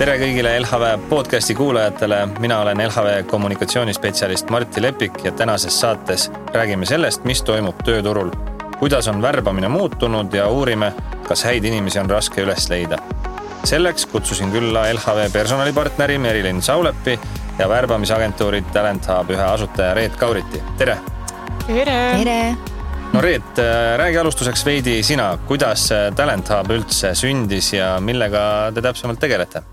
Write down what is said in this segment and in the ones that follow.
Tere kõigile LHV podcasti kuulajatele. Mina olen LHV kommunikatsioonispetsialist Martti Lepik ja tänases saates räägime sellest, mis toimub tööturul, kuidas on värbamine muutunud ja uurime, kas häid inimesi on raske üles leida. Selleks kutsusin külla LHV personalipartneri Merilin Saulepi ja värbamisagentuuri Talent Hub ühe asutaja Reet Kauriti. Tere! Tere! No Reet, räägi alustuseks veidi sina, kuidas Talent Hub üldse sündis ja millega te täpsemalt tegelete?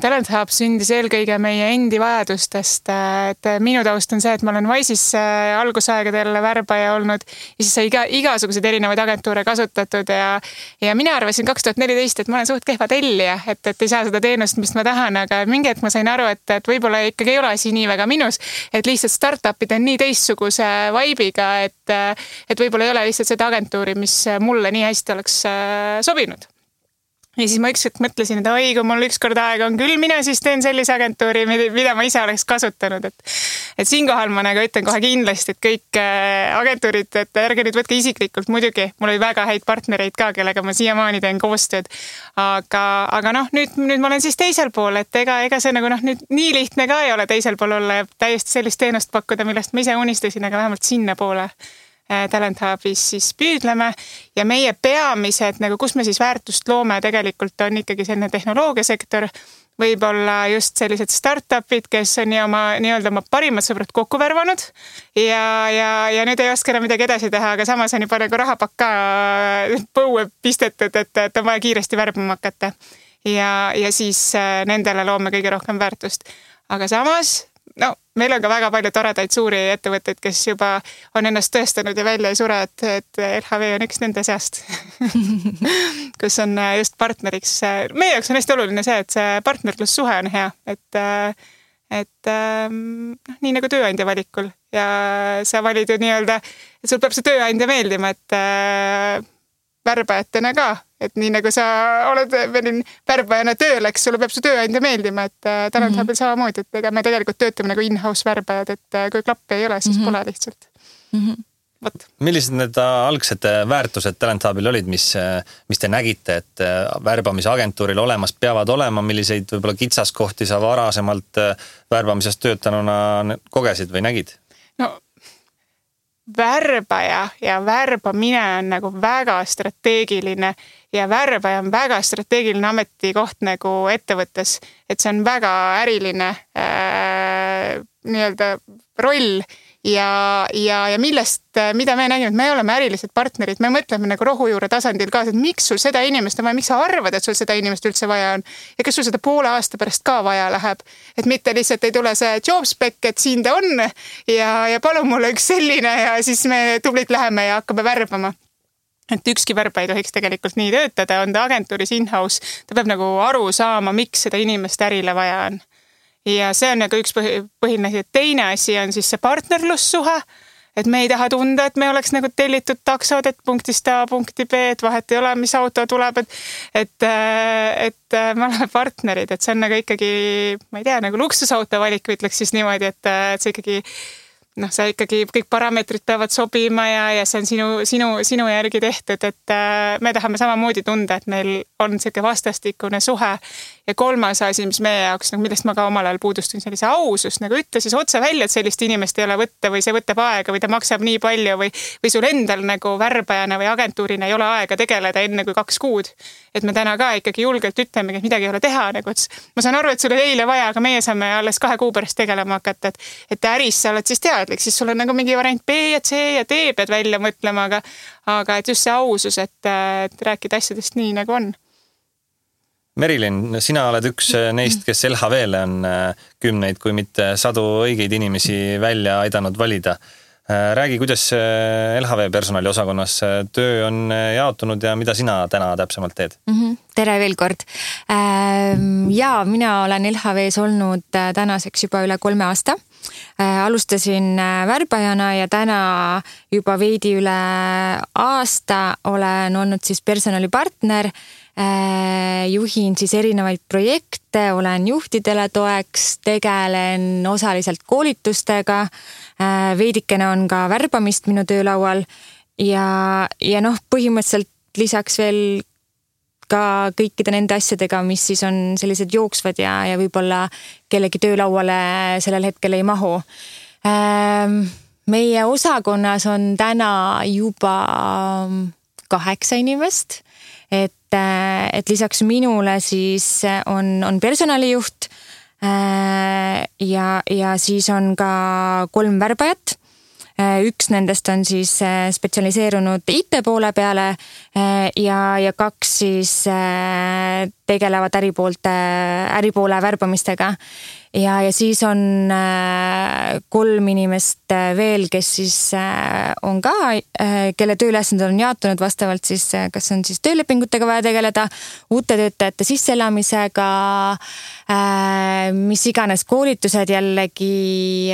Talent Hub sündis eelkõige meie endi vajadustest, et minu taust on see, et ma olen Wise'is algusaegadel värbaja olnud ja siis sai igasuguseid erinevaid agentuure kasutatud ja mina arvasin 2014, et ma olen suht kehva tellija, et ei saa seda teenust, mis ma tahan, aga mingi hetk ma sain aru, et võib-olla ikkagi ei ole asi nii väga minus, et lihtsalt startupid on nii teistsuguse vibe'iga, et võib-olla ei ole lihtsalt seda agentuuri, mis mulle nii hästi oleks sobinud. Ja siis ma ükskord mõtlesin, et kui mul ükskord aega on küll, mina siis teen sellise agentuuri, mida ma ise oleks kasutanud. Et siinkohal ma nagu ütlen kohe kindlasti, et kõik agentuurid, et ärge nüüd võtke isiklikult muidugi. Mul oli väga häid partnereid ka, kellega ma siiamaani teen koostööd. Aga nüüd ma olen siis teisel pool, et ega see nagu nüüd nii lihtne ka ei ole teisel pool olla ja täiesti sellist teenust pakkuda, millest ma ise unistasin, aga vähemalt sinna poole Talent Hubis siis püüdleme ja meie peamised, nagu kus me siis väärtust loome tegelikult on ikkagi selline tehnoloogiasektor, võib-olla just sellised startupid, kes on oma parimad sõbrad kokku värvanud ja nüüd ei oska enam midagi edasi teha, aga samas on juba nagu rahapakka põue pistetud, et on vaja kiiresti värbama hakata ja siis nendele loome kõige rohkem väärtust. Aga samas meil on ka väga palju toredaid suuri ettevõtteid, kes juba on ennast tõestanud ja välja ei sure, et LHV on üks nende seast, kus on just partneriks. Meie jaoks on hästi oluline see, et see partnerlussuhe on hea, et nii nagu tööandja valikul ja sa valid ju et sul peab see tööandja meeldima, et värbajatena ka, et nii nagu sa oled värbajana tööl, eks sulle peab su tööandja meeldima, et Talent Hubil samamoodi, et me tegelikult töötame nagu in-house värbajad, et kui klappi ei ole, siis pole lihtsalt. Millised need algsed väärtused Talent Hubil olid, mis te nägite, et värbamisagentuuril olemas peavad olema, milliseid võib-olla kitsaskohti sa varasemalt värbamisest töötanuna kogesid või nägid? Värbaja ja värbamine on nagu väga strateegiline ja värbaja on väga strateegiline ametikoht nagu ettevõttes, et see on väga äriline roll ja mida me nägime, et me oleme ärilised partnerid, me mõtleme nagu rohujuure tasandil ka, et miks sul seda inimest on vaja, miks sa arvad, et sul seda inimest üldse vaja on ja kas sul seda poole aasta pärast ka vaja läheb, et mitte lihtsalt ei tule see job spec, et siin ta on ja palun mulle üks selline ja siis me tublid läheme ja hakkame värbama. Et ükski värba ei tohiks tegelikult nii töötada, on ta agentuuris in-house, ta peab nagu aru saama, miks seda inimest ärile vaja on. Ja see on nagu üks põhiline asi. Teine asi on siis see partnerlussuhe, et me ei taha tunda, et me oleks nagu tellitud taksod, et punktist A, punkti B, et vahet ei ole, mis auto tuleb, et me oleme partnerid, et see on nagu ikkagi, ma ei tea, nagu luksusauto valik, ütleks siis niimoodi, et see ikkagi see ikkagi kõik parameetrid peavad sobima ja see on sinu järgi tehtud, et me tahame samamoodi tunda, et meil on selline vastastikune suhe. Ja kolmas asi, mis meie jaoks, millest ma ka omal ajal puudustun, sellise ausus, nagu ütle siis otse välja, et sellist inimest ei ole võtta või see võtab aega või ta maksab nii palju või sul endal nagu värbajana või agentuurina ei ole aega tegeleda enne kui 2 kuud. Et me täna ka ikkagi julgelt ütlemegi, et midagi ei ole teha. Ma saan aru, et sul oli eile vaja, aga meie saame alles 2 kuu pärast tegelema hakata, et äris sa oled siis teadlik, siis sul on nagu mingi variant B ja C ja D pead välja mõtlema, aga et just see ausus, et rääkida asjadest nii nagu on. Merilin, sina oled üks neist, kes LHV-le on 10, kui mitte 100 õigeid inimesi välja aidanud valida. Räägi, kuidas LHV personaliosakonnas töö on jaotunud ja mida sina täna täpsemalt teed? Tere veel kord. Mina olen LHV-s olnud tänaseks juba üle 3 aasta. Alustasin värbajana ja täna juba veidi üle aasta olen olnud siis personalipartner. Juhin siis erinevaid projekte, olen juhtidele toeks, tegelen osaliselt koolitustega, veidikene on ka värbamist minu töölaual ja põhimõtteliselt lisaks veel ka kõikide nende asjadega, mis siis on sellised jooksvad ja võib-olla kellegi töölauale sellel hetkel ei mahu. Meie osakonnas on täna juba 8 inimest, et lisaks minule siis on personalijuht ja siis on ka 3 värbajat. Üks nendest on siis spetsialiseerunud IT poole peale ja 2 siis tegelevad äripoole värbamistega. Ja siis on 3 inimest veel, kes siis on ka, kelle tööülesanded on jaotunud vastavalt siis, kas on siis töölepingutega vaja tegeleda, uute töötajate sisseelamisega, mis iganes koolitused jällegi,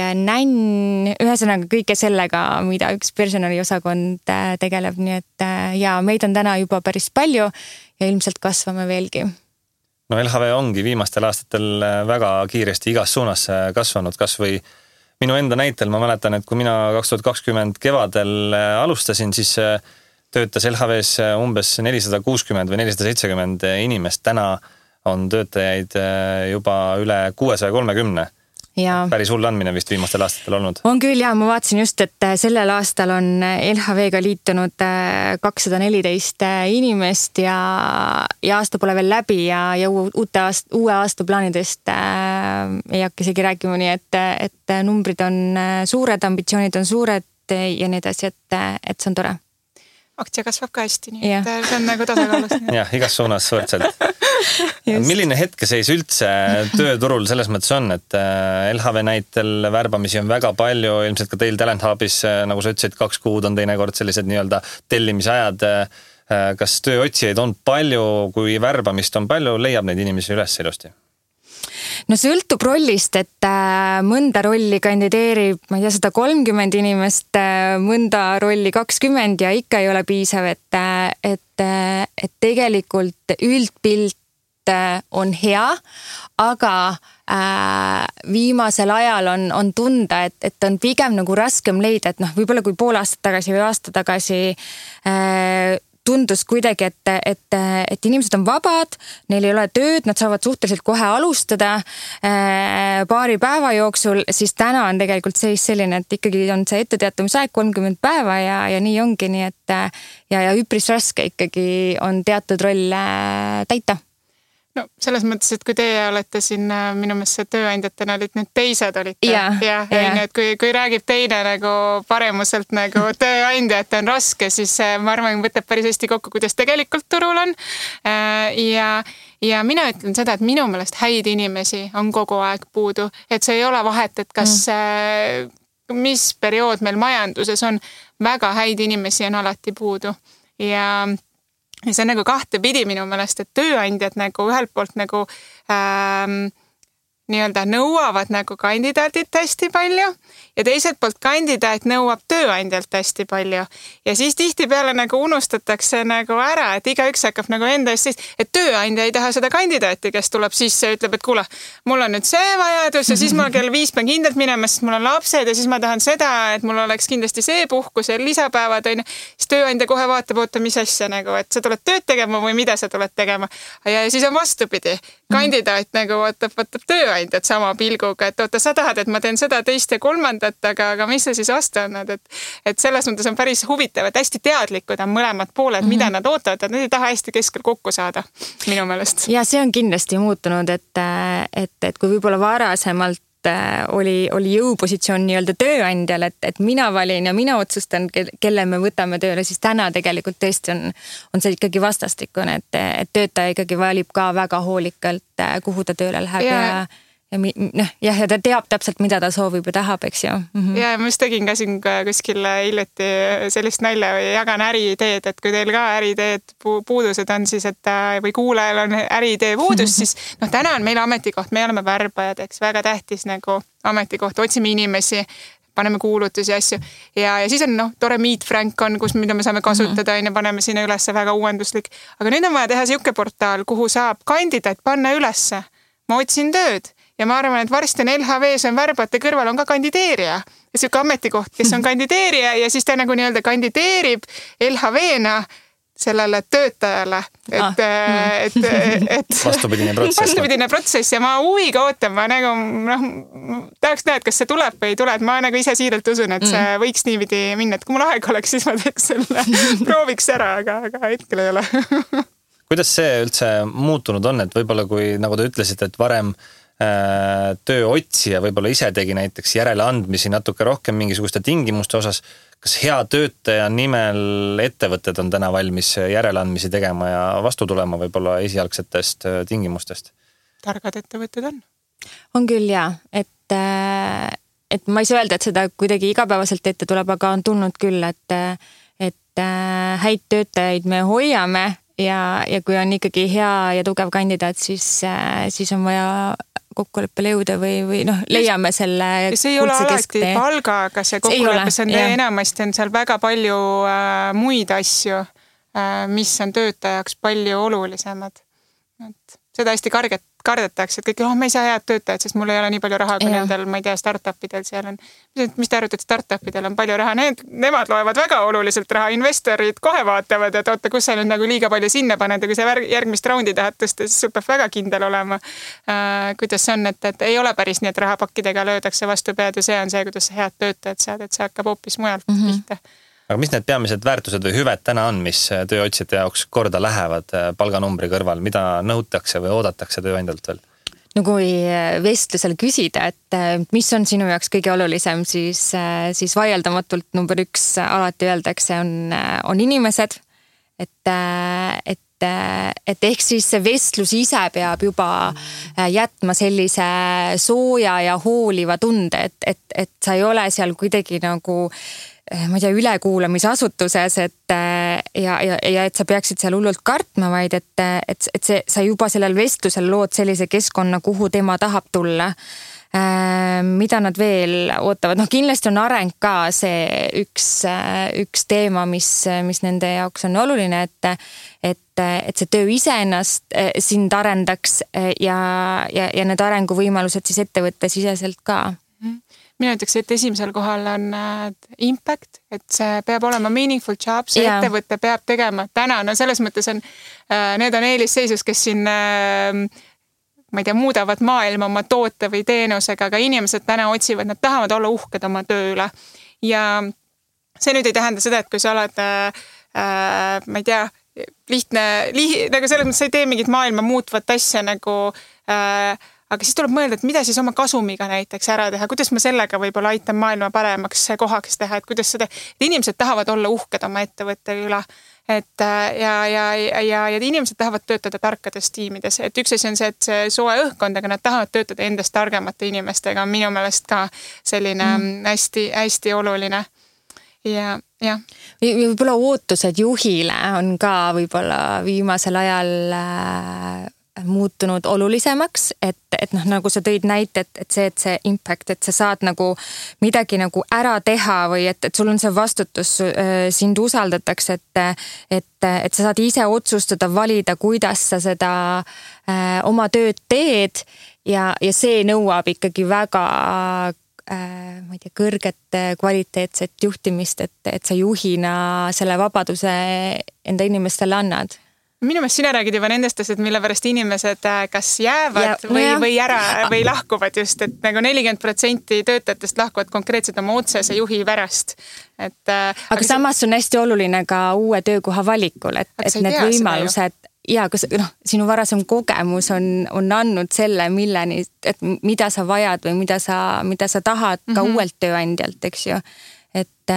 ühesõnaga kõike sellega, mida üks personaliosakond tegeleb, nii et ja meid on täna juba päris palju ja ilmselt kasvame veelgi. No LHV ongi viimastel aastatel väga kiiresti igas suunas kasvanud, kas või minu enda näitel. Ma mäletan, et kui mina 2020 kevadel alustasin, siis töötas LHVs umbes 460 või 470 inimest. Täna on töötajaid juba üle 630. Ja. Päris hull andmine vist viimastel aastatel olnud. On küll ja ma vaatasin just, et sellel aastal on LHV-ga liitunud 214 inimest ja aasta pole veel läbi ja uue aasta plaanidest ei hakka isegi rääkima, nii et numbrid on suured, ambitsioonid on suured ja nii edasi, et see on tore. Aktsia kasvab ka hästi, nii et see on nagu tasakaalus. Jah, igas suunas võrdselt. Milline hetkeseis üldse tööturul selles mõttes on, et LHV näitel värbamisi on väga palju, ilmselt ka teil Talent Hubis, nagu sa ütlesid, 2 kuud on teinekord sellised nii-öelda tellimisajad. Kas tööotsijaid on palju, kui värbamist on palju, leiab neid inimesi üles ilusti? No sõltub rollist, et mõnda rolli kandideerib, ma ei tea, 130 inimest, mõnda rolli 20 ja ikka ei ole piisav, et tegelikult üldpilt on hea, aga viimasel ajal on tunda, et on pigem nagu raskem leida, et võib-olla kui pool aastat tagasi või aasta tagasi tundus kuidagi, et inimesed on vabad, neil ei ole tööd, nad saavad suhteliselt kohe alustada paari päeva jooksul, siis täna on tegelikult seis selline, et ikkagi on see etteteatamisaeg 30 päeva ja nii ongi, nii et ja üpris raske ikkagi on teatud rolle täita. No selles mõttes, et kui teie olete siin minu meelest tööandjatena olid, nüüd teised olite. Ja nüüd, kui räägib teine nagu paremuselt nagu tööandja, et on raske, siis ma arvan, võtab päris hästi kokku, kuidas tegelikult turul on. Ja mina ütlen seda, et minu meelest häid inimesi on kogu aeg puudu, et see ei ole vahet, et kas mis periood meil majanduses on, väga häid inimesi on alati puudu ja see on nagu kahtepidi minu meelest, et tööandjad nagu ühelt poolt nagu nii-öelda nõuavad nagu kandidaadilt hästi palju ja teiselt poolt kandidaat nõuab tööandjalt hästi palju. Ja siis tihtipeale nagu unustatakse nagu ära, et igaüks hakkab nagu enda eest siis, et tööandja ei taha seda kandidaati, kes tuleb sisse ja ütleb, et kuule, mul on nüüd see vajadus ja siis ma kell 5 pean kindlalt minema, sest mul on lapsed ja siis ma tahan seda, et mul oleks kindlasti see puhkus ja lisapäevad on. Siis tööandja kohe vaatab, oota, mis asja nagu, et sa tuled tööd tegema või mida sa tuled tegema. Ja siis on vastupidi. Kandidaat nagu vaatab tööandjat sama pilguga, et oota, sa tahad, et ma teen seda, teist ja kolmandat, aga mis sa siis vastu annad, et selles mõttes on päris huvitav, et hästi teadlikud on mõlemad pooled, mida nad ootavad, et nad ei taha hästi keskel kokku saada, minu meelest. Ja see on kindlasti muutunud, et kui võib-olla varasemalt oli jõupositsioon nii-öelda tööandjal, et mina valin ja mina otsustan, kelle me võtame tööle, siis täna tegelikult tõesti on see ikkagi vastastikune, et töötaja ikkagi valib ka väga hoolikalt, kuhu ta tööle läheb ja ta teab täpselt, mida ta soovib ja tahab, eks ju. Ja ma just tegin ka siin kuskil hiljuti sellist nalja või jagan äriideed, et kui teil ka äriideed puudused on siis, et või kuulajal on äriidee puudus, siis täna on meil ametikoht, me oleme värbajad, eks väga tähtis nagu ametikoht, otsime inimesi, paneme kuulutusi ja asju ja siis on tore Meet Frank on, mida me saame kasutada ja paneme sinna ülesse väga uuenduslik, aga nüüd on vaja teha siuke portaal, kuhu saab kandidaat panna ülesse, ma otsin tööd. Ja ma arvan, et varsti on LHV-s on värbajate kõrval on ka kandideerija. Ja siuke ametikoht, kes on kandideerija ja siis ta nagu nii-öelda kandideerib LHV-na sellele töötajale, et vastupidine protsess ja ma huviga ootan, ma nagu tahaks näha, et kas see tuleb või ei tule, et ma nagu ise siiralt usun, et see võiks niipidi minna, et kui mul aeg oleks, siis ma teeks selle, prooviks ära, aga hetkel ei ole. Kuidas see üldse muutunud on, et võib-olla kui, nagu te ütlesite, et varem tööotsija võib-olla ise tegi näiteks järeleandmisi natuke rohkem mingisuguste tingimuste osas, kas hea töötaja nimel ettevõtted on täna valmis järeleandmisi tegema ja vastu tulema võib-olla esialgsetest tingimustest? Targad ettevõtted on. On küll jah, et ma ei saa öelda, et seda kuidagi igapäevaselt ette tuleb, aga on tulnud küll, et häid töötajaid me hoiame ja kui on ikkagi hea ja tugev kandidaat, siis on vaja kokkuleppele jõuda või leiame selle see ei ole alati palgaga see kokkulepe, see on enamasti on seal väga palju muid asju, mis on töötajaks palju olulisemad. Et seda hästi kardetakse, et kõik, me ei saa head töötajad, sest mul ei ole nii palju raha, kui nendel, ma ei tea, startupidel seal on. Mis te arvate, et startupidel on palju raha? Nemad loevad väga oluliselt raha, investorid kohe vaatavad, et oota, kus sa nüüd nagu liiga palju sinna paned ja kui sa järgmist raundi tahad tõsta, siis sul peab väga kindel olema, kuidas see on, et ei ole päris nii, et rahapakkidega löödakse vastu pead ja see on see, kuidas sa head töötajad saad, et see hakkab hoopis mujalt pihta. Aga mis need peamised väärtused või hüved täna on, mis tööotsijate jaoks korda lähevad palganumbri kõrval, mida nõutakse või oodatakse tööandjalt veel? No kui vestlusel küsida, et mis on sinu jaoks kõige olulisem, siis vaieldamatult number 1 alati öeldakse on inimesed, et ehk siis see vestlus ise peab juba jätma sellise sooja ja hooliva tunde, et sa ei ole seal kuidagi nagu ma ei tea, ülekuulamisasutuses, ja et sa peaksid seal hullult kartma, vaid et sa juba sellel vestlusel lood sellise keskkonna, kuhu tema tahab tulla. Mida nad veel ootavad? Kindlasti on areng ka see üks teema, mis nende jaoks on oluline, et see töö iseennast sind arendaks ja need arenguvõimalused siis ettevõtte siseselt ka. Mina ütleks, et esimesel kohal on impact, et see peab olema meaningful job, see ettevõtte peab tegema täna, selles mõttes on, need on eelisseisus, kes siin, ma ei tea, muudavad maailma oma toote või teenusega, aga inimesed täna otsivad, nad tahavad olla uhked oma töö üle. Ja see nüüd ei tähenda seda, et kui sa oled, ma ei tea, lihtne, nagu selles mõttes sa ei tee mingit maailma muutvat asja nagu aga siis tuleb mõelda, et mida siis oma kasumiga näiteks ära teha, kuidas ma sellega võib-olla aitan maailma paremaks kohaks teha, et kuidas seda, et inimesed tahavad olla uhked oma ettevõtte üle, et ja inimesed tahavad töötada tarkades tiimides, et üks asi on see, et see soe õhkkond, aga nad tahavad töötada endast targemate inimestega, on minu meelest ka selline hästi oluline. Ja. Võib-olla ootused juhile on ka võib-olla viimasel ajal muutunud olulisemaks, et nagu sa tõid näite, et see impact, et sa saad nagu midagi nagu ära teha või et sul on see vastutus, sind usaldatakse, et sa saad ise otsustada, valida, kuidas sa seda oma tööd teed ja see nõuab ikkagi väga ma ei tea, kõrget kvaliteetset juhtimist, et sa juhina selle vabaduse enda inimestele annad. Minu meelest sina räägid juba nendest asjad, mille pärast inimesed kas jäävad või ära või lahkuvad just, et nagu 40% töötajatest lahkuvad konkreetselt oma otsese juhi pärast. Aga samas on hästi oluline ka uue töökoha valikul, et need võimalused ja kas sinu varasem kogemus on andnud selle, milleni, et mida sa vajad või mida sa tahad ka uuelt tööandjalt, eks ju. Et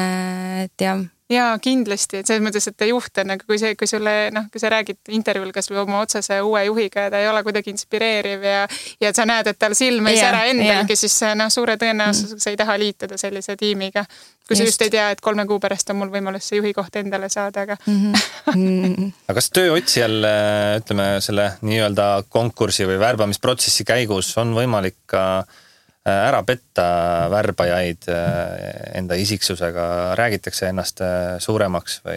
jah. Jaa, kindlasti, et selles mõttes, et juht on, kui sa räägid intervjuul kas või oma otsese uue juhiga ja ta ei ole kuidagi inspireeriv ja sa näed, et tal silm ei sära endalgi, siis suure tõenäosusega sa ei taha liituda sellise tiimiga. Kui sa just ei tea, et 3 kuu pärast on mul võimalus see juhi koht endale saada, aga... Aga kas tööotsijal, ütleme, selle nii-öelda konkursi või värbamisprotsessi käigus on võimalik ka ära petta värbajaid enda isiksusega, räägitakse ennast suuremaks või?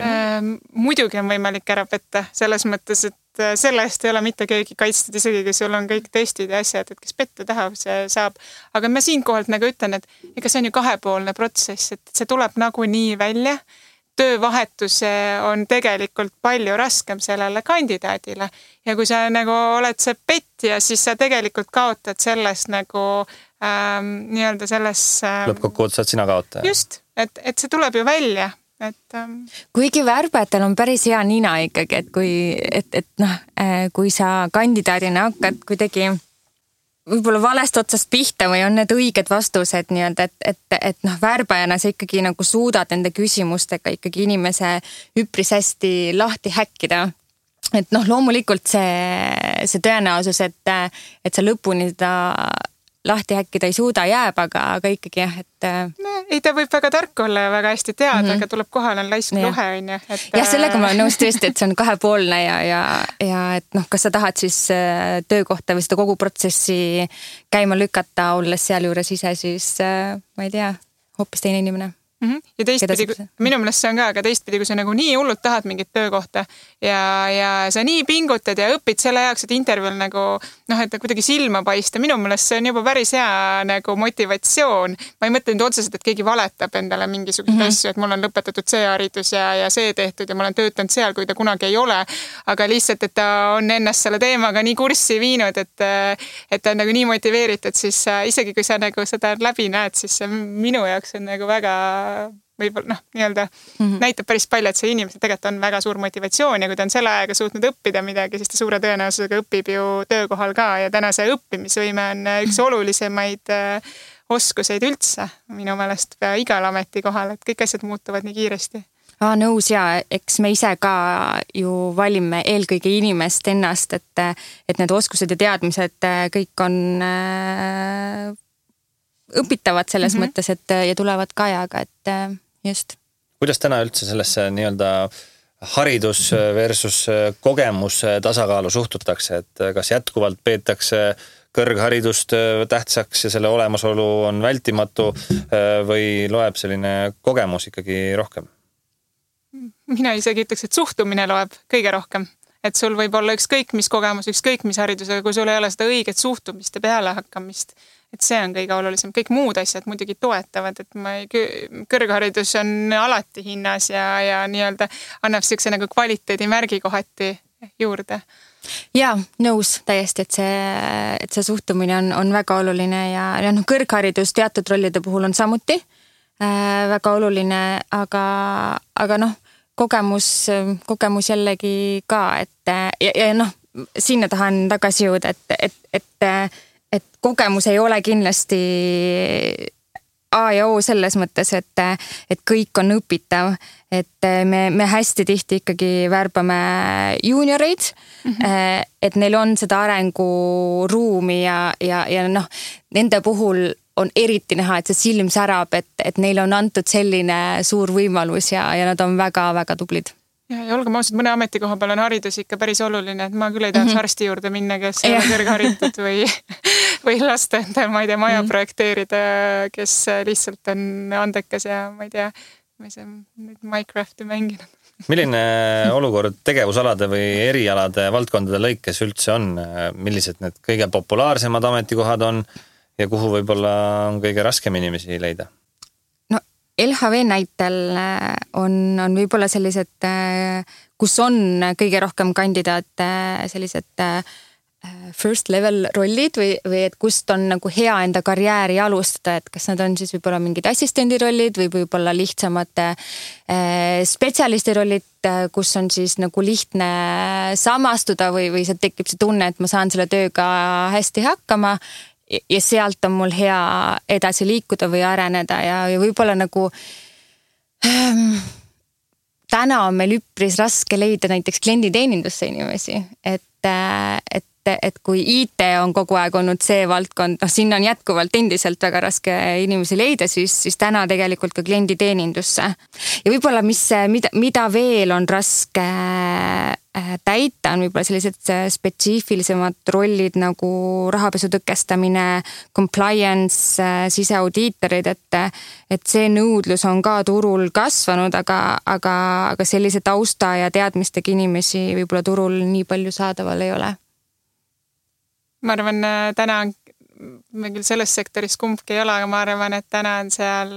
Muidugi on võimalik ära petta, selles mõttes, et selle eest ei ole mitte keegi kaitstud, isegi kui sul on kõik testid ja asjad, et kes petta tahab, see saab. Aga ma siinkohalt nagu ütlen, et ega see on ju 2-poolne protsess, et see tuleb nagu nii välja. töövahetus on tegelikult palju raskem sellele kandidaadile. Ja kui sa nagu oled see petja, siis sa tegelikult kaotad sellest nagu nii-öelda selles... Lõppkokkuvõttes saad sina kaotaja. Just, et see tuleb ju välja. Kuigi värbajatel on päris hea nina ikkagi, et kui sa kandidaadina hakkad kuidagi võib-olla valest otsast pihta või on need õiged vastused nii-öelda, et värbajana sa ikkagi nagu suudad nende küsimustega ikkagi inimese üpris hästi lahti häkkida. Et loomulikult see tõenäosus, et sa lõpuni seda lahti häkkida ei suuda jääb, aga ikkagi jah, et... Ei, ta võib väga tark olla ja väga hästi teada, aga tuleb kohale laisk luhe, on ju. Ja sellega ma olen nõus tõesti, et see on kahepoolne ja et kas sa tahad siis töökohta või seda kogu protsessi käima lükata, olles seal juures ise, siis ma ei tea, hoopis teine inimene. Ja teistpidi, minu meelest see on ka, aga teistpidi, kui sa nagu nii hullult tahad mingit töökohta ja sa nii pingutad ja õpid selle jaoks, et intervjuul nagu, et kuidagi silma paista, minu meelest see on juba päris hea nagu motivatsioon. Ma ei mõtle nüüd otseselt, et keegi valetab endale mingisugust asju, et mul on lõpetatud see haridus ja see tehtud ja ma olen töötanud seal, kui ta kunagi ei ole, aga lihtsalt, et ta on ennast selle teemaga nii kurssi viinud, et ta on nagu nii motiveeritud, siis isegi kui sa nagu seda läbi näed, siis minu jaoks on nagu väga võib-olla nii-öelda näitab päris palju, et see inimesel tegelikult on väga suur motivatsioon ja kui ta on selle ajaga suutnud õppida midagi, siis ta suure tõenäosusega õpib ju töökohal ka ja täna see õppimisvõime on üks olulisemaid oskuseid üldse minu meelest igal ametikohal, et kõik asjad muutuvad nii kiiresti. Nõus ja eks me ise ka ju valime eelkõige inimest ennast, et need oskused ja teadmised kõik on õpitavad selles mõttes, et ja tulevad ka ajaga, et just. Kuidas täna üldse sellesse nii-öelda haridus versus kogemus tasakaalu suhtutakse, et kas jätkuvalt peetakse kõrgharidust tähtsaks ja selle olemasolu on vältimatu või loeb selline kogemus ikkagi rohkem? Mina isegi ütleks, et suhtumine loeb kõige rohkem. Et sul võib olla ükskõik mis kogemus, ükskõik mis haridusega, kui sul ei ole seda õiget suhtumist ja peale hakkamist. Et see on kõige olulisem. Kõik muud asjad muidugi toetavad, et kõrgharidus on alati hinnas ja nii-öelda annab siukse nagu kvaliteedi märgi kohati juurde. Ja, nõus täiesti, et see suhtumine on väga oluline ja kõrgharidus teatud rollide puhul on samuti väga oluline, aga kogemus jällegi ka, et sinna tahan tagasi jõuda, et kogemus ei ole kindlasti A ja O selles mõttes, et kõik on õpitav, et me hästi tihti ikkagi värbame juunioreid, et neil on seda arenguruumi ja nende puhul on eriti näha, et see silm särab, et neil on antud selline suur võimalus ja nad on väga-väga tublid. Ja olgem ausad, mõne ametikoha peal on haridus ikka päris oluline, et ma küll ei tahaks arsti juurde minna, kes ei ole kõrgharitud või lasta enda, ma ei tea, maja projekteerida, kes lihtsalt on andekas ja ma ei tea, Minecrafti mänginud. Milline olukord tegevusalade või erialade valdkondade lõikes üldse on? Millised need kõige populaarsemad ametikohad on ja kuhu võib-olla on kõige raskem inimesi leida? LHV näitel on võib-olla sellised, kus on kõige rohkem kandidaate sellised first level rollid või et kust on nagu hea enda karjääri alustada, et kas nad on siis võib-olla mingid assistendi rollid või võib-olla lihtsamate spetsialisti rollid, kus on siis nagu lihtne samastuda või see tekib see tunne, et ma saan selle tööga hästi hakkama ja sealt on mul hea edasi liikuda või areneda ja võib-olla nagu täna on meil üpris raske leida näiteks klienditeenindusse inimesi, et kui IT on kogu aeg olnud see valdkond, sinna on jätkuvalt endiselt väga raske inimesi leida, siis täna tegelikult ka klienditeenindusse. Ja võib-olla mida veel on raske täita, on võib-olla sellised spetsiifilisemad rollid nagu rahapesu tõkestamine, compliance, siseaudiitorid, et see nõudlus on ka turul kasvanud, aga sellise tausta ja teadmistega inimesi võib-olla turul nii palju saadaval ei ole. Ma arvan, täna me küll selles sektoris kumbki ei ole, aga ma arvan, et täna on seal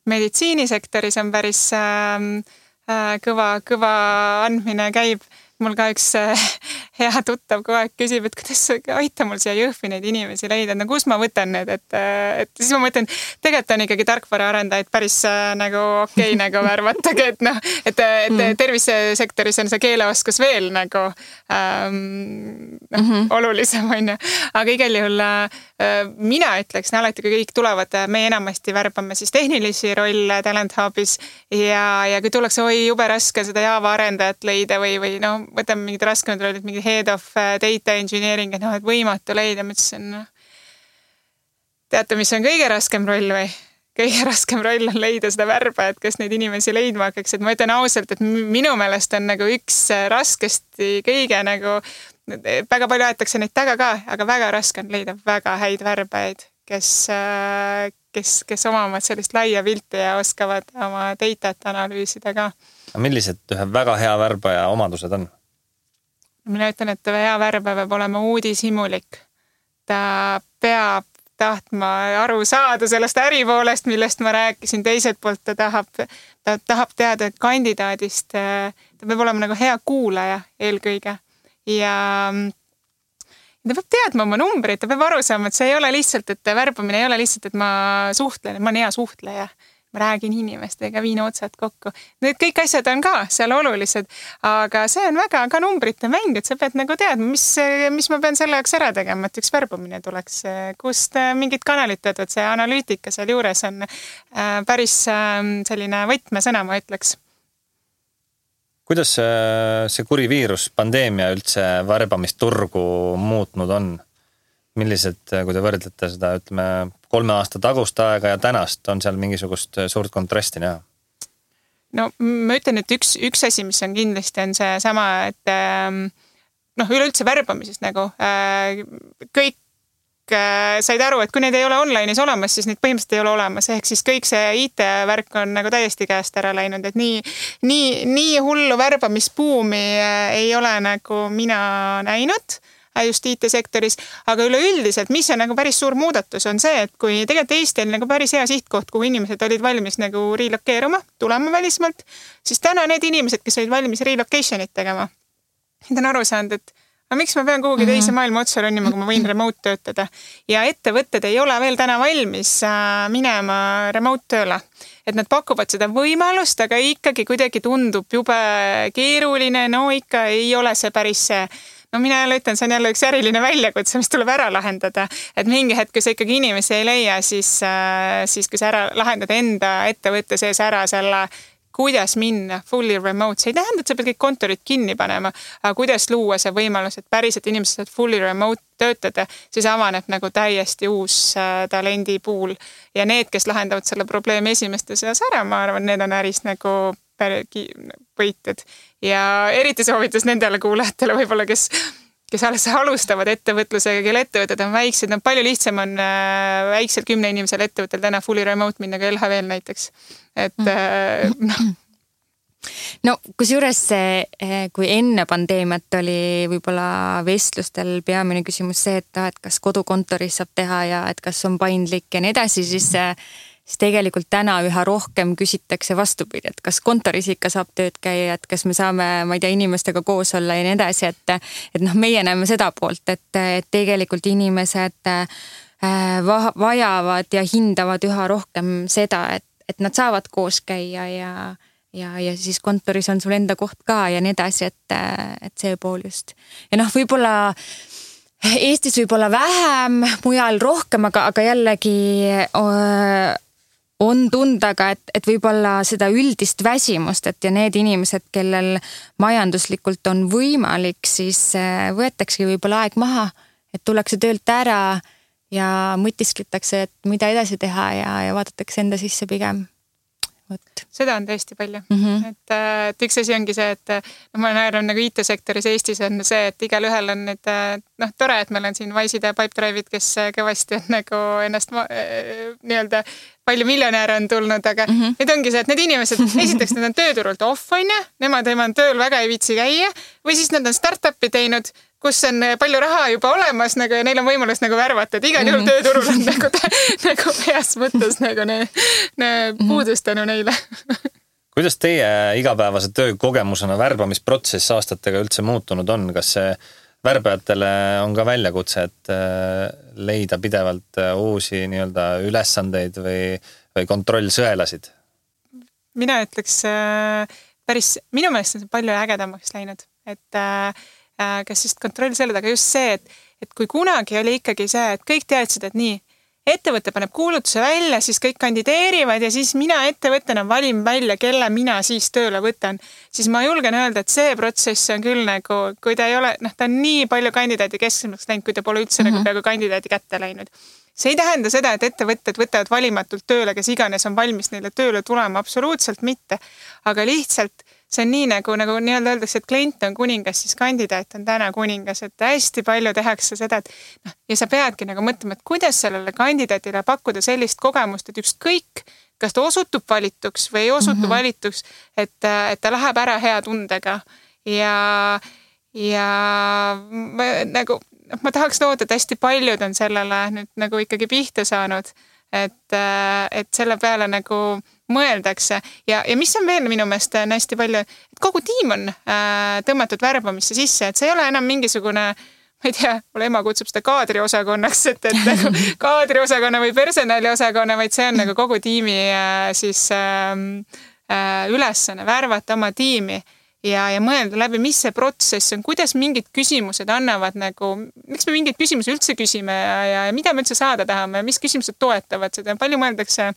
meditsiinisektoris on päris kõva andmine käib. Mul ka üks hea tuttav kogu aeg küsib, et kuidas aita mul siia Jõhvi neid inimesi leida, no kus ma võtan need, et siis ma mõtlen, tegelikult on ikkagi tarkvaraarendajaid päris nagu okei nagu värvatagi, et noh, et tervisesektoris on see keeleoskus veel nagu olulisem on ju, aga igal juhul mina ütleksin alati, kui kõik tulevad, me enamasti värbame siis tehnilisi rolle Talent Hubis ja kui tullakse, oi jube raske seda Java arendajat leida või no võtame mingid raskemad rollid, mingi head of data engineering, et noh, et võimatu leida, ma ütlesin, teate, mis on kõige raskem roll või? Kõige raskem roll on leida seda värbajat, kes neid inimesi leidma hakkaks, et ma ütlen ausalt, et minu meelest on nagu üks raskesti kõige nagu, väga palju aetakse neid taga ka, aga väga raske on leida väga häid värbajaid, kes omavad sellist laia pilti ja oskavad oma datat analüüsida ka. Millised ühe väga hea värbaja omadused on? Mina ütlen, et hea värbaja peab olema uudishimulik. Ta peab tahtma aru saada sellest äripoolest, millest ma rääkisin. Teiselt poolt ta tahab teada kandidaadist. Ta peab olema nagu hea kuulaja eelkõige. Ja ta peab teadma oma numbreid, ta peab aru saama, et see ei ole lihtsalt, et värbamine ei ole lihtsalt, et ma suhtlen, ma olen hea suhtleja. Ma räägin inimestega, viin otsad kokku. Need kõik asjad on ka seal olulised, aga see on väga ka numbrite mäng, et sa pead nagu teadma, mis ma pean selle jaoks ära tegema, et üks värbamine tuleks, kust mingid kanalid töötavad, see analüütika seal juures on päris selline võtmesõna, ma ütleks. Kuidas see kuri viirus, pandeemia üldse värbamisturgu muutnud on? Millised, kui te võrdlete seda, ütleme, 3 aasta tagust aega ja tänast, on seal mingisugust suurt kontrasti näha? No ma ütlen, et üks asi, mis on kindlasti, on see sama, et üleüldse värbamisest nagu kõik said aru, et kui neid ei ole online'is olemas, siis neid põhimõtteliselt ei ole olemas. Ehk siis kõik see IT-värk on nagu täiesti käest ära läinud, et nii hullu värbamispuumi ei ole nagu mina näinud just IT-sektoris, aga üleüldiselt, mis on nagu päris suur muudatus, on see, et kui tegelikult Eesti on nagu päris hea sihtkoht, kuhu inimesed olid valmis nagu relokeeruma, tulema välismaalt, siis täna need inimesed, kes olid valmis relocation'it tegema, need on aru saanud, et miks ma pean kuhugi teise maailma otsa ronnima, kui ma võin remote töötada. Ja ettevõtted ei ole veel täna valmis minema remote tööle. Et nad pakuvad seda võimalust, aga ikkagi kuidagi tundub jube keeruline, no ikka ei ole see päris see. No mina jälle ütlen, see on jälle üks äriline väljakutse, mis tuleb ära lahendada. Et mingi hetk, kui sa ikkagi inimesi ei leia, siis kui sa ära lahendad enda ettevõtte sees ära selle, kuidas minna fully remote. See ei tähenda, et sa pead kõik kontorid kinni panema, aga kuidas luua see võimalus, et päriselt inimesed saavad fully remote töötada, siis avaneb nagu täiesti uus talendipuul. Ja need, kes lahendavad selle probleemi esimeste seas ära, ma arvan, need on äris nagu võited. Ja eriti soovitas nendele kuulajatele võib-olla, kes alles alustavad ettevõtlusega, kelle ettevõtted on väiksed. No palju lihtsam on väiksel 10 inimesel ettevõttel täna fully remote minna ka LHV-l näiteks. Et No kusjuures kui enne pandeemiat oli võib-olla vestlustel peamine küsimus see, et kas kodukontoris saab teha ja et kas on paindlik ja nii edasi, siis tegelikult täna üha rohkem küsitakse vastupidi, et kas kontoris ikka saab tööd käia, et kas me saame, ma ei tea, inimestega koos olla ja nii edasi, et meie näeme seda poolt, et tegelikult inimesed vajavad ja hindavad üha rohkem seda, et nad saavad koos käia ja siis kontoris on sul enda koht ka ja nii edasi, et see pool just. Ja võib-olla Eestis võib-olla vähem, mujal rohkem, aga jällegi on tunda ka, et võib-olla seda üldist väsimust, et ja need inimesed, kellel majanduslikult on võimalik, siis võetakse võib-olla aeg maha, et tullakse töölt ära ja mõtiskletakse, et mida edasi teha ja vaadatakse enda sisse pigem. Seda on tõesti palju. Et üks asi ongi see, et ma näen nagu IT-sektoris Eestis on see, et igal ühel on need, tore, et meil on siin Wise'id ja Pipedrive'id, kes kõvasti on nagu ennast nii-öelda palju miljonääre on tulnud, aga nüüd ongi see, et need inimesed, esiteks nad on tööturult off, on ja, nemad tööl väga ei viitsi käia või siis nad on startup'i teinud, kus on palju raha juba olemas nagu, ja neil on võimalus nagu värvata, et igal juhul tööturul on nagu heas mõttes nagu puudus tänu neile. Kuidas teie igapäevase töökogemusena värbamisprotsess aastatega üldse muutunud on? Kas see värbajatele on ka väljakutse, et leida pidevalt uusi nii-öelda ülesandeid või kontrollsõelasid? Mina ütleks minu meelest on see palju ägedamaks läinud, et kas just kontrollsõelad, aga just see, et kui kunagi oli ikkagi see, et kõik teadsid, et nii, ettevõte paneb kuulutuse välja, siis kõik kandideerivad ja siis mina ettevõttena valin välja, kelle mina siis tööle võtan. Siis ma julgen öelda, et see protsess on küll nagu, kui ta ei ole, ta on nii palju kandidaadi kesksemaks läinud, kui ta pole üldse nagu peaaegu kandidaadi kätte läinud. See ei tähenda seda, et ettevõtted võtavad valimatult tööle, kes iganes on valmis neile tööle tulema, absoluutselt mitte. Aga lihtsalt see on nii nagu nii-öelda öeldakse, et klient on kuningas, siis kandidaat on täna kuningas, et hästi palju tehakse seda, et ja sa peadki nagu mõtlema, et kuidas sellele kandidaatile pakkuda sellist kogemust, et ükskõik, kas ta osutub valituks või ei osutu valituks, et ta läheb ära hea tundega ja ma tahaks loota, et hästi paljud on sellele nüüd nagu ikkagi pihta saanud, et selle peale nagu mõeldakse ja mis on veel minu meelest hästi palju, et kogu tiim on tõmmatud värbamisse sisse, et see ei ole enam mingisugune, ma ei tea, mulle ema kutsub seda kaadriosakonnaks, et nagu kaadriosakonna või personaliosakonna, vaid see on nagu kogu tiimi siis ülesanne värvata oma tiimi ja mõelda läbi, mis see protsess on, kuidas mingid küsimused annavad nagu, miks me mingeid küsimusi üldse küsime ja mida me üldse saada tahame, mis küsimused toetavad seda, palju mõeldakse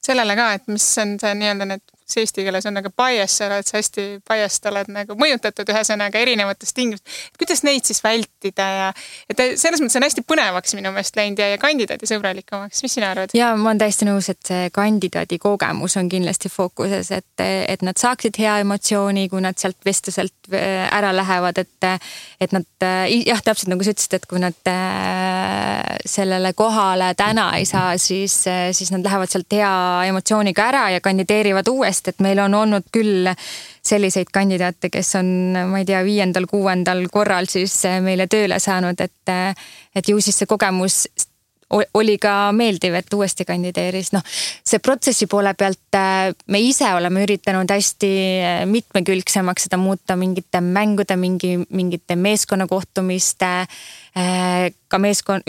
sellele ka, et mis on see nii-öelda need, see eesti keeles on nagu bias, sa oled hästi biased, oled nagu mõjutatud ühesõnaga erinevatest tingimust. Kuidas neid siis vältida ja et selles mõttes on hästi põnevaks minu meelest läinud ja kandidaadi sõbralikumaks. Mis sina arvad? Ja ma olen täiesti nõus, et see kandidaadi kogemus on kindlasti fookuses, et nad saaksid hea emotsiooni, kui nad sealt vestluselt ära lähevad, et nad, jah, täpselt nagu sa ütlesid, et kui nad sellele kohale täna ei saa, siis nad lähevad sealt hea emotsiooniga ära ja kandideerivad uuesti, et meil on olnud küll selliseid kandidaate, kes on, ma ei tea, 5.-6. korral siis meile tööle saanud, et ju siis see kogemus oli ka meeldiv, et uuesti kandideeris. See protsessi poole pealt me ise oleme üritanud hästi mitmekülgsemaks seda muuta mingite mängude, mingite meeskonnakohtumiste, ka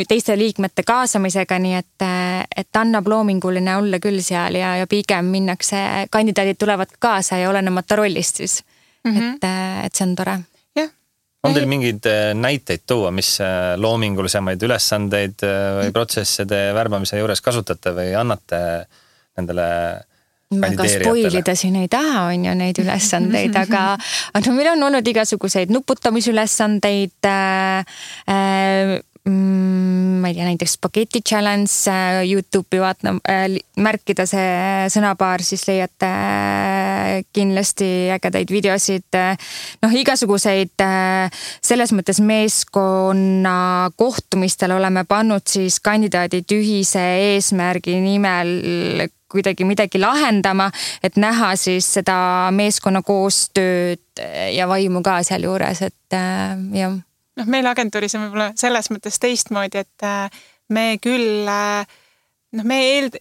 teiste liikmete kaasamisega, nii et annab loominguline olla küll seal ja pigem minnakse, kandidaadid tulevad kaasa ja olenemata rollist siis, et see on tore. On teil mingeid näiteid tuua, mis loomingulisemaid ülesandeid või protsesse te värbamise juures kasutate või annate nendele kandideerijatele? Väga spoilida siin ei taha, on ju neid ülesandeid, aga meil on olnud igasuguseid nuputamisülesandeid, ma ei tea, näiteks spaghetti challenge, YouTube'i märkida see sõnapaar, siis leiate kindlasti ägedaid videosid, igasuguseid selles mõttes meeskonna kohtumistel oleme pannud siis kandidaadid ühise eesmärgi nimel kuidagi midagi lahendama, et näha siis seda meeskonna koostööd ja vaimu ka seal juures, et jah. Meil agentuuris on võib-olla selles mõttes teistmoodi, et me küll, me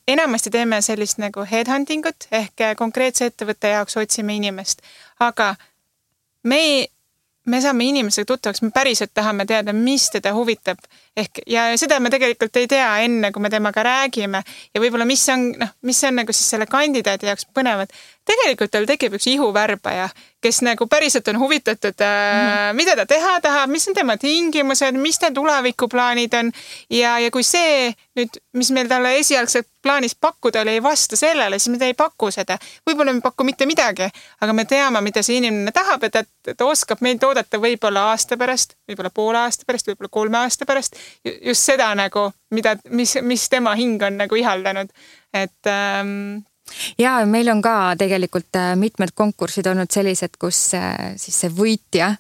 enamasti teeme sellist nagu headhuntingut ehk konkreetse ettevõtte jaoks otsime inimest, aga me saame inimesega tuttavaks, me päriselt tahame teada, mis teda huvitab ehk ja seda me tegelikult ei tea enne, kui me temaga räägime ja võib-olla mis on nagu siis selle kandidaadi jaoks põnevad. Tegelikult tal tekib üks ihuvärbaja, kes nagu päriselt on huvitatud, mida ta teha tahab, mis on tema tingimused, mis ta tulevikuplaanid on ja kui see nüüd, mis meil talle esialgselt plaanis pakkuda oli, ei vasta sellele, siis me ei paku seda. Võib-olla me paku mitte midagi, aga me teame, mida see inimene tahab, et ta oskab meid oodata võib-olla aasta pärast, võib-olla poole aasta pärast, võib-olla 3 aasta pärast. Just seda nagu, mis tema hing on nagu ihaldanud. Et Ja meil on ka tegelikult mitmed konkursid olnud sellised, kus siis see võitja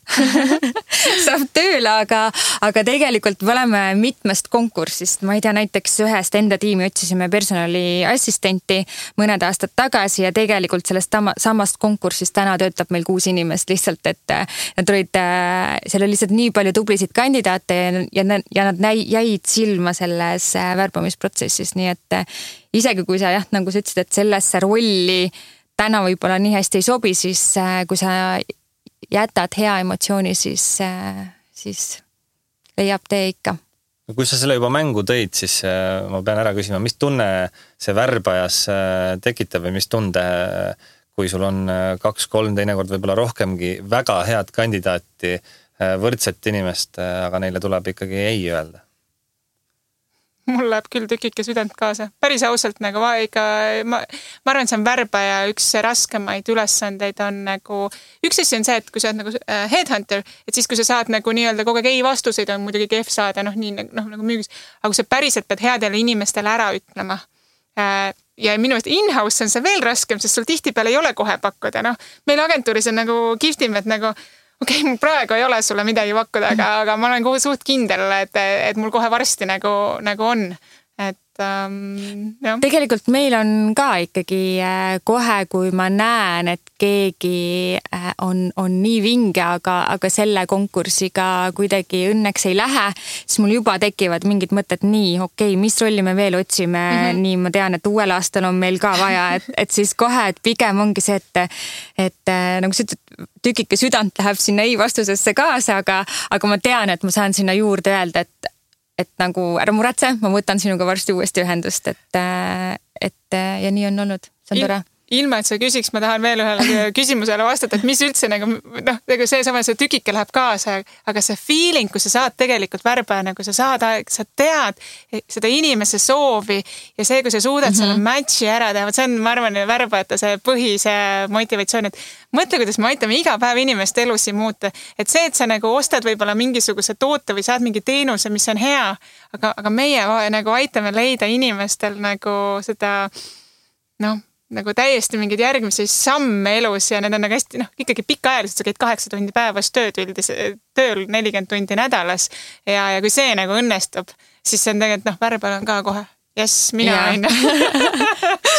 saab tööle, aga tegelikult me oleme mitmest konkursist. Ma ei tea, näiteks ühest enda tiimi otsisime personaliassistenti mõned aastad tagasi ja tegelikult sellest samast konkursist täna töötab meil 6 inimest lihtsalt, et nad olid, seal oli lihtsalt nii palju tublisid kandidaate ja nad jäid silma selles värbamisprotsessis, nii et isegi kui sa nagu sa ütlesid, et sellesse rolli täna võib-olla nii hästi ei sobi, siis kui sa jätad hea emotsiooni, siis leiab tee ikka. Kui sa selle juba mängu tõid, siis ma pean ära küsima, mis tunne see värbajas tekitab või mis tunde, kui sul on 2-3 teinekord võib-olla rohkemgi väga head kandidaati, võrdset inimest, aga neile tuleb ikkagi ei öelda? Mul läheb küll tükike südant kaasa. Päris ausalt nagu ma arvan, et see on värbaja üks raskemaid ülesandeid on nagu, üks asi on see, et kui sa oled nagu headhunter, et siis kui sa saad nagu nii-öelda kogu aeg ei vastuseid on muidugi kehv saada, nagu müügis, aga kui sa päriselt pead headele inimestele ära ütlema. Ja minu meelest in-house on see veel raskem, sest sul tihtipeale ei ole kohe pakkuda. Meil agentuuris on nagu kihvtim, et nagu okei, mul praegu ei ole sulle midagi pakkuda, aga ma olen suht kindel, et mul kohe varsti nagu on. Jah. Tegelikult meil on ka ikkagi kohe, kui ma näen, et keegi on nii vinge, aga selle konkursiga kuidagi õnneks ei lähe, siis mul juba tekivad mingid mõtted nii, okei, mis rolli me veel otsime, nii ma tean, et uuel aastal on meil ka vaja, et siis kohe, et pigem ongi see, et nagu sa ütled, tükike südant läheb sinna ei vastusesse kaasa, aga ma tean, et ma saan sinna juurde öelda, et nagu ära muretse, ma võtan sinuga varsti uuesti ühendust, et ja nii on olnud, see on tore. Ilma, et sa küsiks, ma tahan veel ühele küsimusele vastata, et mis üldse nagu see sama, see tükike läheb kaasa, aga see feeling, kui sa saad tegelikult värbaja, nagu sa tead seda inimese soovi ja see, kui sa suudad selle matchi ära teha, see on, ma arvan, värbajate see põhise motivatsioon, et mõtle, kuidas me aitame iga päev inimeste elusi muuta, et see, et sa nagu ostad võib-olla mingisuguse toote või saad mingi teenuse, mis on hea, aga meie nagu aitame leida inimestel nagu seda, nagu täiesti mingid järgmisi samme elus ja need on nagu hästi, ikkagi pikaajaliselt, sa käid 8 tundi päevas tööl 40 tundi nädalas ja kui see nagu õnnestub, siis see on tegelikult, värbal on ka kohe. Yes, mina aina.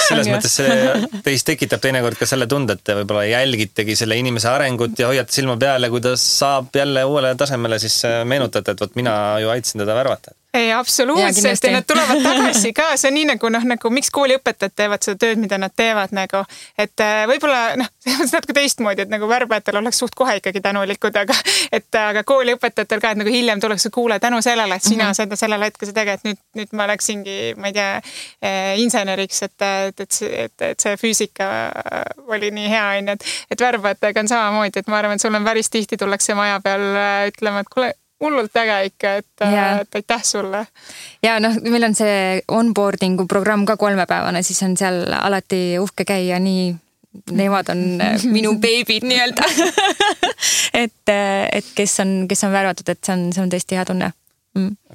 Selles mõttes see teist tekitab teinekord ka selle tunde, et te võib-olla jälgitegi selle inimese arengut ja hoiate silma peale, kui ta saab jälle uuele tasemele, siis meenutate, et võt mina ju aitasin teda värvata. Ei, absoluutselt ja nad tulevad tagasi ka, see on nii nagu miks kooliõpetajad teevad seda tööd, mida nad teevad nagu, et võib-olla see on natuke teistmoodi, et nagu värbajatel oleks suht kohe ikkagi tänulikud, aga kooliõpetajatel ka, et nagu hiljem tuleks kuule tänu sellele, et sina seda sellel hetkel sa teged, nüüd ma läksingi, ma ei tea, inseneriks, et see füüsika oli nii hea, et värbajatega on samamoodi, et ma arvan, et sul on päris tihti tullakse maja peal ütlema, et kuule, hullult äge ikka, et aitäh sulle. Ja meil on see onboardingu programm ka 3-päevane, siis on seal alati uhke käia, nii nemad on minu beebid nii-öelda. et kes on värvatud, et see on tõesti hea tunne.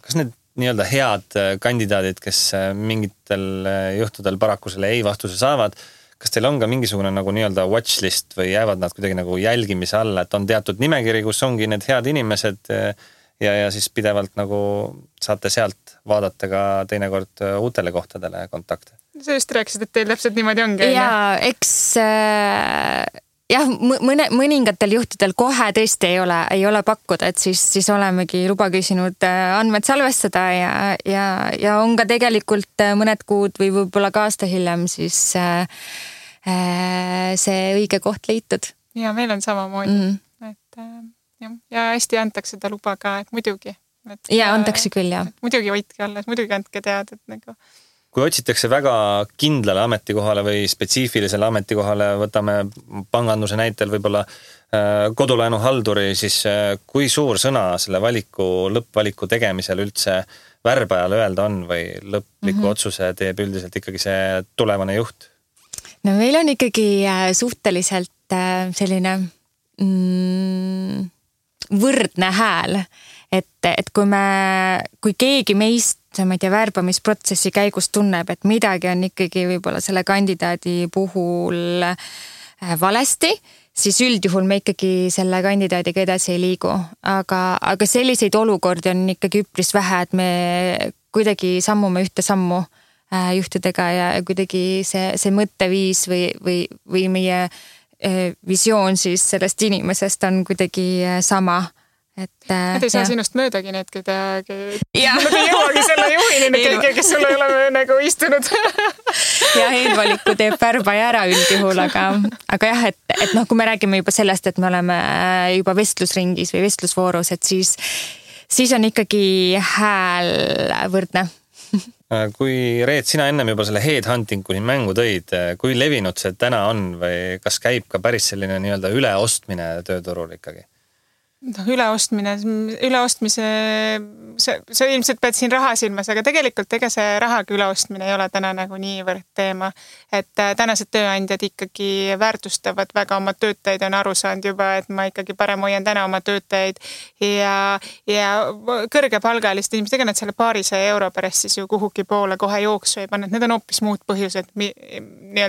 Kas need nii-öelda head kandidaadid, kes mingitel juhtudel paraku selle ei vastuse saavad, kas teil on ka mingisugune nagu nii-öelda watchlist või jäävad nad kuidagi nagu jälgimise alla, et on teatud nimekiri, kus ongi need head inimesed ja siis pidevalt nagu saate sealt vaadata ka teinekord uutele kohtadele kontakte? Sa just rääkisid, et teil täpselt niimoodi ongi. Ja eks mõningatel juhtudel kohe tõesti ei ole pakkuda, et siis olemegi luba küsinud andmed salvestada ja on ka tegelikult mõned kuud või võib-olla ka aasta hiljem siis see õige koht leitud. Ja meil on samamoodi, et ja hästi antakse seda luba ka, et muidugi. Ja antakse küll, jah. Muidugi hoidke alles, muidugi andke teada, et nagu kui otsitakse väga kindlale ametikohale või spetsiifilisele ametikohale, võtame panganduse näitel võib-olla kodulaenuhalduri, siis kui suur sõna selle lõppvaliku tegemisel üldse värbajale öelda on või lõpliku otsuse teeb üldiselt ikkagi see tulevane juht? No meil on ikkagi suhteliselt selline võrdne hääl, et kui keegi meist ma ei tea, värbamisprotsessi käigus tunneb, et midagi on ikkagi võib-olla selle kandidaadi puhul valesti, siis üldjuhul me ikkagi selle kandidaadiga edasi ei liigu. Aga selliseid olukordi on ikkagi üpris vähe, et me kuidagi sammume ühte sammu juhtidega ja kuidagi see mõtteviis või meie visioon siis sellest inimesest on kuidagi sama. Nad ei saa sinust möödagi need, nad ei jõuagi selle juhini, kes sulle ei ole nagu istunud. Ja eelvaliku teeb värbaja ära üldjuhul, aga jah, et kui me räägime juba sellest, et me oleme juba vestlusringis või vestlusvoorus, et siis on ikkagi hääl võrdne. Kui Reet, sina ennem juba selle headhunting kuni mängu tõid, kui levinud see täna on või kas käib ka päris selline nii-öelda üleostmine tööturul ikkagi? Üleostmise, see ilmselt pead siin raha silmas, aga tegelikult ega see rahaga üleostmine ei ole täna nagu niivõrd teema. Et tänased tööandjad ikkagi väärtustavad väga oma töötajaid, on aru saanud juba, et ma ikkagi parem hoian täna oma töötajaid ja kõrgepalgalist inimestega nad selle €200 pärast siis ju kuhugi poole kohe jooksu ei pannud. Need on hoopis muud põhjused,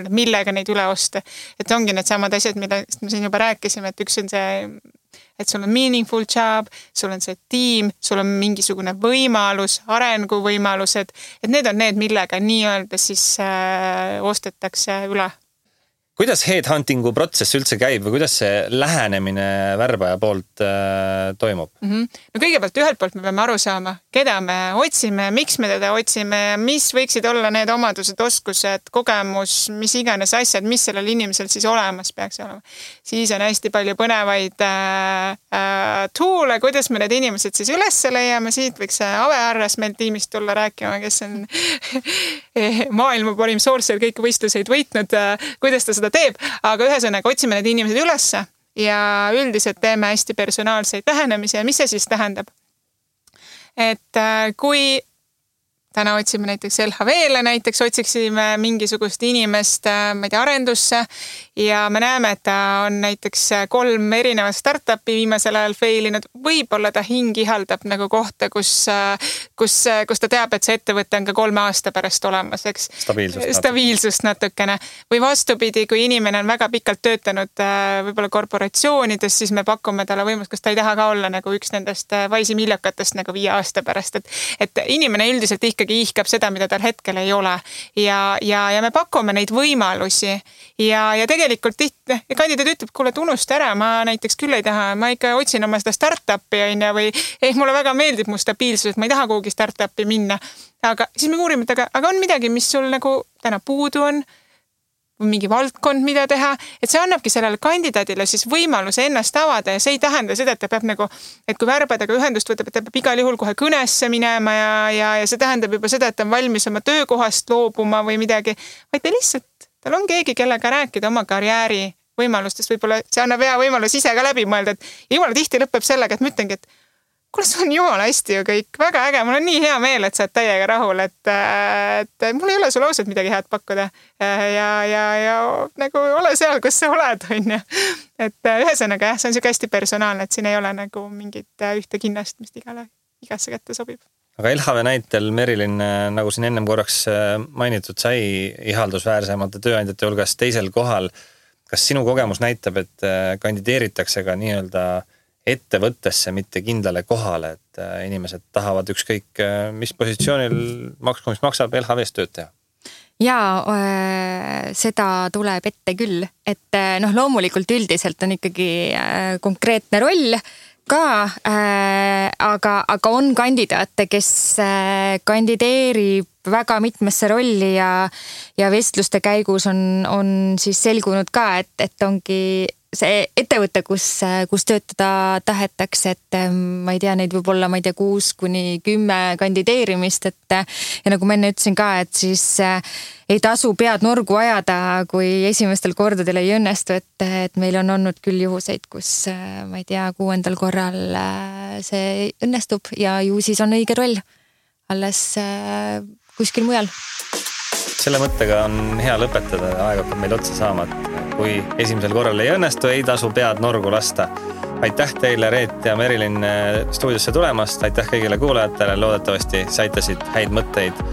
millega neid üle osta. Et ongi need samad asjad, millest me siin juba rääkisime, et üks on see, et sul on meaningful job, sul on see tiim, sul on mingisugune võimalus, arenguvõimalused, et need on need, millega nii-öelda siis ostetakse üle. Kuidas headhuntingu protsess üldse käib või kuidas see lähenemine värbaja poolt toimub? No kõigepealt ühelt poolt me peame aru saama, keda me otsime, miks me teda otsime, mis võiksid olla need omadused, oskused, kogemus, mis iganes asjad, mis sellel inimesel siis olemas peaks olema. Siis on hästi palju põnevaid toole, kuidas me need inimesed siis üles leiame. Siit võiks Ave Arras meil tiimist tulla rääkima, kes on maailma parim sourcer, kõik võistluseid võitnud, kuidas ta seda teeb, aga ühesõnaga otsime need inimesed ülesse ja üldiselt teeme hästi personaalseid lähenemisi ja mis see siis tähendab? Et kui täna otsime näiteks LHV-le, näiteks otsiksime mingisugust inimest, ma ei tea, arendusse ja me näeme, et ta on näiteks 3 erinevat startupi viimasel ajal failinud. Võib-olla ta hing ihaldab nagu kohta, kus ta teab, et see ettevõte on ka 3 aasta pärast olemas, eks? Stabiilsust natukene. Või vastupidi, kui inimene on väga pikalt töötanud võib-olla korporatsioonides, siis me pakume talle võimalust, kas ta ei taha ka olla nagu üks nendest vaisi miljakatest nagu 5 aasta pärast. Et inimene üldiselt ikkagi ihkab seda, mida tal hetkel ei ole. Ja me pakume neid võimalusi ja tegelikult kandidaat ütleb, kuule, unusta ära, ma näiteks küll ei taha, ma ikka otsin oma seda startupi või mulle väga meeldib mu stabiilsus, et ma ei taha kuhugi startupi minna. Aga siis me uurime, aga on midagi, mis sul nagu täna puudu on, mingi valdkond, mida teha, et see annabki sellele kandidaadile siis võimaluse ennast avada ja see ei tähenda seda, et ta peab nagu, et kui värbadega ühendust võtab, et ta peab igal juhul kohe kõnesse minema ja see tähendab juba seda, et ta on valmis oma töökohast loobuma või midagi, vaid ta lihtsalt, tal on keegi, kellega rääkida oma karjääri võimalustest, võib-olla see annab hea võimalus ise ka läbi mõelda, et jumala tihti lõpeb sellega, et ma ütlengi, et kuule, see on jumala hästi ju kõik, väga äge, mul on nii hea meel, et sa oled täiega rahul, et mul ei ole sulle ausalt midagi head pakkuda ja nagu ole seal, kus sa oled, on ju. Et ühesõnaga jah, see on siuke hästi personaalne, et siin ei ole nagu mingit ühte kinnast, mis igasse kätte sobib. Aga LHV näitel Merilin, nagu siin ennem korraks mainitud, sai ihaldusväärsemate tööandjate hulgas teisel kohal. Kas sinu kogemus näitab, et kandideeritakse ka nii-öelda ettevõttesse, mitte kindlale kohale, et inimesed tahavad ükskõik mis positsioonil maksku, mis maksab LHV-s tööd teha? Jaa, seda tuleb ette küll, et loomulikult üldiselt on ikkagi konkreetne roll ka, aga on kandidaate, kes kandideerib väga mitmesse rolli ja vestluste käigus on siis selgunud ka, et ongi see ettevõte, kus töötada tahetakse, et ma ei tea, neid võib olla, 6-10 kandideerimist, ja nagu ma enne ütlesin ka, et siis ei tasu pead norgu ajada, kui esimestel kordadel ei õnnestu, et meil on olnud küll juhuseid, kus ma ei tea, 6. korral see õnnestub ja ju siis on õige roll alles kuskil mujal. Selle mõttega on hea lõpetada, aeg hakkab meil otsa saama, et kui esimesel korral ei õnnestu, ei tasu pead norgu lasta. aitäh teile, Reet ja Merilin, stuudiosse tulemast, aitäh kõigile kuulajatele, loodetavasti saitasid häid mõtteid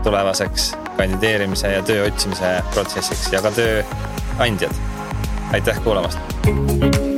tulevaseks kandideerimise ja töö otsimise protsessiks ja ka tööandjad. Aitäh kuulamast!